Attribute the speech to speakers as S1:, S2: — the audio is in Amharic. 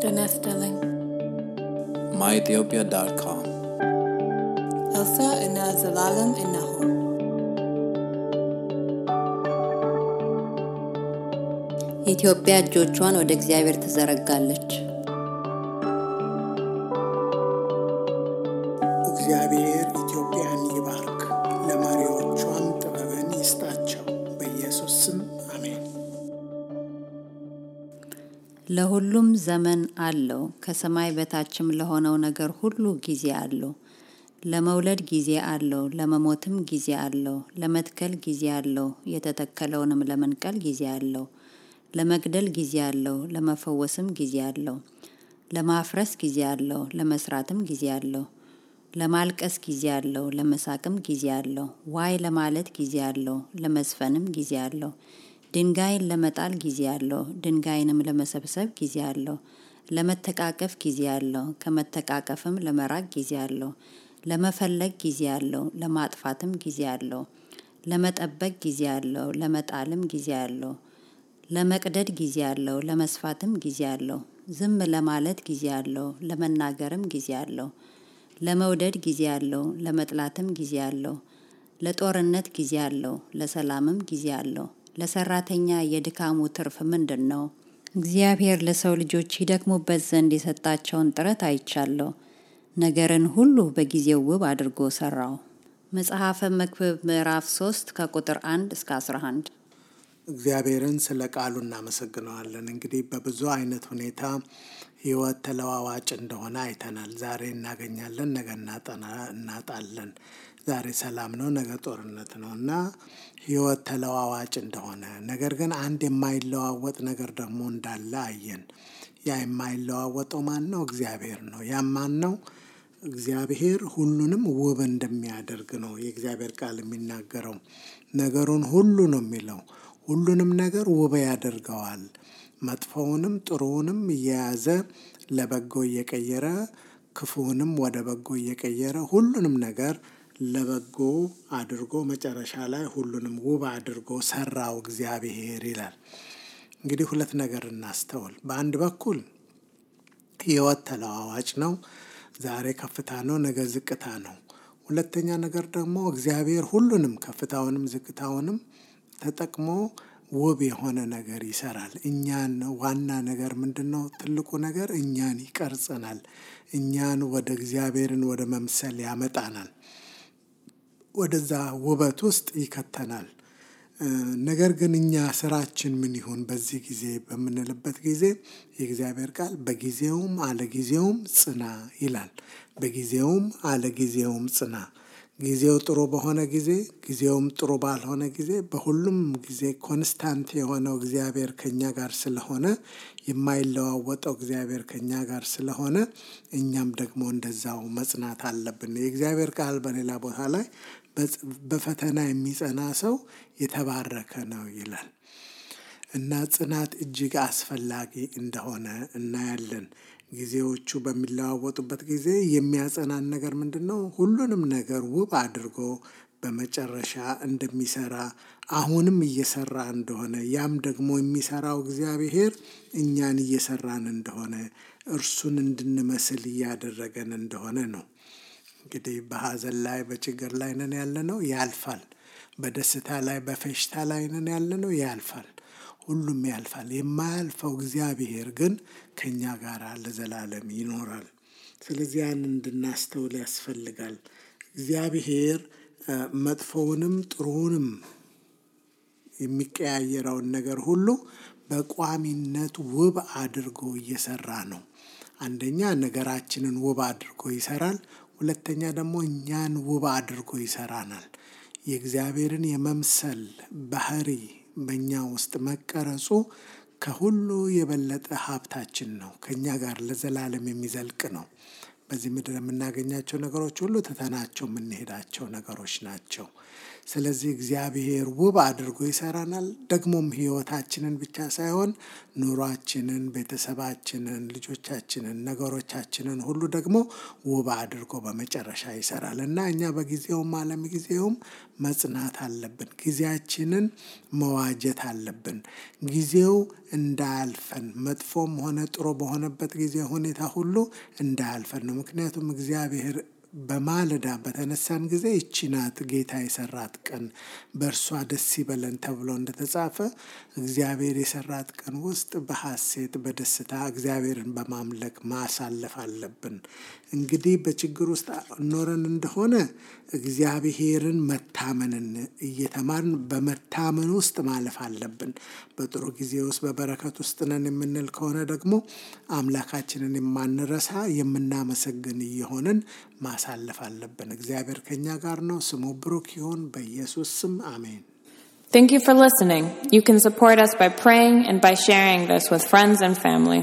S1: ጤና ይስጥልኝ።
S2: myethiopia.com
S1: ኤልሳ እና ዘላለም እነሆ። ኢትዮጵያ እጆቿን ወደ እግዚአብሔር ትዘረጋለች።
S3: እግዚአብሔር ኢትዮጵያን ይባርክ፣ ለመሪዎቿም ጥበብን ይስጣቸው። በኢየሱስ ስም አሜን።
S1: ለሁሉም ዘመን አለው፣ ከሰማይ በታችም ለሆነው ነገር ሁሉ ጊዜ አለው። ለመውለድ ጊዜ አለው፣ ለመሞትም ጊዜ አለው። ለመትከል ጊዜ አለው፣ የተተከለውንም ለመንቀል ጊዜ አለው። ለመግደል ጊዜ አለው፣ ለመፈወስም ጊዜ አለው። ለማፍረስ ጊዜ አለው፣ ለመስራትም ጊዜ አለው። ለማልቀስ ጊዜ አለው፣ ለመሳቅም ጊዜ አለው። ዋይ ለማለት ጊዜ አለው፣ ለመዝፈንም ጊዜ አለው። ድንጋይን ለመጣል ጊዜ አለው፣ ድንጋይንም ለመሰብሰብ ጊዜ አለው። ለመተቃቀፍ ጊዜ አለው፣ ከመተቃቀፍም ለመራቅ ጊዜ አለው። ለመፈለግ ጊዜ አለው፣ ለማጥፋትም ጊዜ አለው። ለመጠበቅ ጊዜ አለው፣ ለመጣልም ጊዜ አለው። ለመቅደድ ጊዜ አለው፣ ለመስፋትም ጊዜ አለው። ዝም ለማለት ጊዜ አለው፣ ለመናገርም ጊዜ አለው። ለመውደድ ጊዜ አለው፣ ለመጥላትም ጊዜ አለው። ለጦርነት ጊዜ አለው፣ ለሰላምም ጊዜ አለው። ለሰራተኛ የድካሙ ትርፍ ምንድን ነው? እግዚአብሔር ለሰው ልጆች ይደክሙበት ዘንድ የሰጣቸውን ጥረት አይቻለሁ። ነገርን ሁሉ በጊዜው ውብ አድርጎ ሰራው። መጽሐፈ መክብብ ምዕራፍ 3 ከቁጥር 1 እስከ 11።
S3: እግዚአብሔርን ስለ ቃሉ እናመሰግነዋለን። እንግዲህ በብዙ አይነት ሁኔታ ሕይወት ተለዋዋጭ እንደሆነ አይተናል። ዛሬ እናገኛለን፣ ነገ እናጣለን። ዛሬ ሰላም ነው፣ ነገ ጦርነት ነው እና ሕይወት ተለዋዋጭ እንደሆነ፣ ነገር ግን አንድ የማይለዋወጥ ነገር ደግሞ እንዳለ አየን። ያ የማይለዋወጠው ማን ነው? እግዚአብሔር ነው። ያም ማን ነው? እግዚአብሔር ሁሉንም ውብ እንደሚያደርግ ነው የእግዚአብሔር ቃል የሚናገረው። ነገሩን ሁሉ ነው የሚለው። ሁሉንም ነገር ውብ ያደርገዋል። መጥፎውንም ጥሩውንም እየያዘ ለበጎ እየቀየረ፣ ክፉውንም ወደ በጎ እየቀየረ ሁሉንም ነገር ለበጎ አድርጎ መጨረሻ ላይ ሁሉንም ውብ አድርጎ ሰራው እግዚአብሔር ይላል። እንግዲህ ሁለት ነገር እናስተውል። በአንድ በኩል ሕይወት ተለዋዋጭ ነው። ዛሬ ከፍታ ነው፣ ነገ ዝቅታ ነው። ሁለተኛ ነገር ደግሞ እግዚአብሔር ሁሉንም ከፍታውንም ዝቅታውንም ተጠቅሞ ውብ የሆነ ነገር ይሰራል። እኛን ዋና ነገር ምንድን ነው? ትልቁ ነገር እኛን ይቀርጸናል። እኛን ወደ እግዚአብሔርን ወደ መምሰል ያመጣናል። ወደዛ ውበት ውስጥ ይከተናል። ነገር ግን እኛ ስራችን ምን ይሁን በዚህ ጊዜ በምንልበት ጊዜ የእግዚአብሔር ቃል በጊዜውም አለጊዜውም ጽና ይላል። በጊዜውም አለጊዜውም ጽና። ጊዜው ጥሩ በሆነ ጊዜ፣ ጊዜውም ጥሩ ባልሆነ ጊዜ፣ በሁሉም ጊዜ ኮንስታንት የሆነው እግዚአብሔር ከኛ ጋር ስለሆነ፣ የማይለዋወጠው እግዚአብሔር ከኛ ጋር ስለሆነ እኛም ደግሞ እንደዛው መጽናት አለብን። የእግዚአብሔር ቃል በሌላ ቦታ ላይ በፈተና የሚጸና ሰው የተባረከ ነው ይላል እና ጽናት እጅግ አስፈላጊ እንደሆነ እናያለን። ጊዜዎቹ በሚለዋወጡበት ጊዜ የሚያጸናን ነገር ምንድን ነው? ሁሉንም ነገር ውብ አድርጎ በመጨረሻ እንደሚሰራ አሁንም እየሰራ እንደሆነ፣ ያም ደግሞ የሚሰራው እግዚአብሔር እኛን እየሰራን እንደሆነ፣ እርሱን እንድንመስል እያደረገን እንደሆነ ነው። እንግዲህ በሐዘን ላይ በችግር ላይ ነን ያለነው፣ ያልፋል። በደስታ ላይ በፌሽታ ላይ ነን ያለነው፣ ያልፋል። ሁሉም ያልፋል። የማያልፈው እግዚአብሔር ግን ከኛ ጋር ለዘላለም ይኖራል። ስለዚህ ያን እንድናስተውል ያስፈልጋል። እግዚአብሔር መጥፎውንም ጥሩውንም የሚቀያየረውን ነገር ሁሉ በቋሚነት ውብ አድርጎ እየሰራ ነው። አንደኛ ነገራችንን ውብ አድርጎ ይሰራል። ሁለተኛ ደግሞ እኛን ውብ አድርጎ ይሰራናል። የእግዚአብሔርን የመምሰል ባህሪ በእኛ ውስጥ መቀረጹ ከሁሉ የበለጠ ሀብታችን ነው። ከእኛ ጋር ለዘላለም የሚዘልቅ ነው። በዚህ ምድር የምናገኛቸው ነገሮች ሁሉ ትተናቸው የምንሄዳቸው ነገሮች ናቸው። ስለዚህ እግዚአብሔር ውብ አድርጎ ይሰራናል። ደግሞም ህይወታችንን ብቻ ሳይሆን ኑሯችንን፣ ቤተሰባችንን፣ ልጆቻችንን፣ ነገሮቻችንን ሁሉ ደግሞ ውብ አድርጎ በመጨረሻ ይሰራል እና እኛ በጊዜውም አለምጊዜውም መጽናት አለብን። ጊዜያችንን መዋጀት አለብን። ጊዜው እንዳያልፈን መጥፎም ሆነ ጥሩ በሆነበት ጊዜ ሁኔታ ሁሉ እንዳያልፈን ነው። ምክንያቱም እግዚአብሔር በማለዳ በተነሳን ጊዜ ይህች ናት ጌታ የሰራት ቀን በእርሷ ደስ ይበለን ተብሎ እንደተጻፈ እግዚአብሔር የሰራት ቀን ውስጥ በሐሴት በደስታ እግዚአብሔርን በማምለክ ማሳለፍ አለብን። እንግዲህ በችግር ውስጥ ኖረን እንደሆነ እግዚአብሔርን መታመንን እየተማርን በመታመን ውስጥ ማለፍ አለብን። በጥሩ ጊዜ ውስጥ በበረከት ውስጥ ነን የምንል ከሆነ ደግሞ አምላካችንን የማንረሳ የምናመሰግን እየሆንን ማሳለፍ አለብን። እግዚአብሔር ከኛ ጋር ነው። ስሙ ብሩክ ይሁን። በኢየሱስ ስም አሜን።
S2: Thank you for listening. You can support us by praying and by sharing this with friends and family.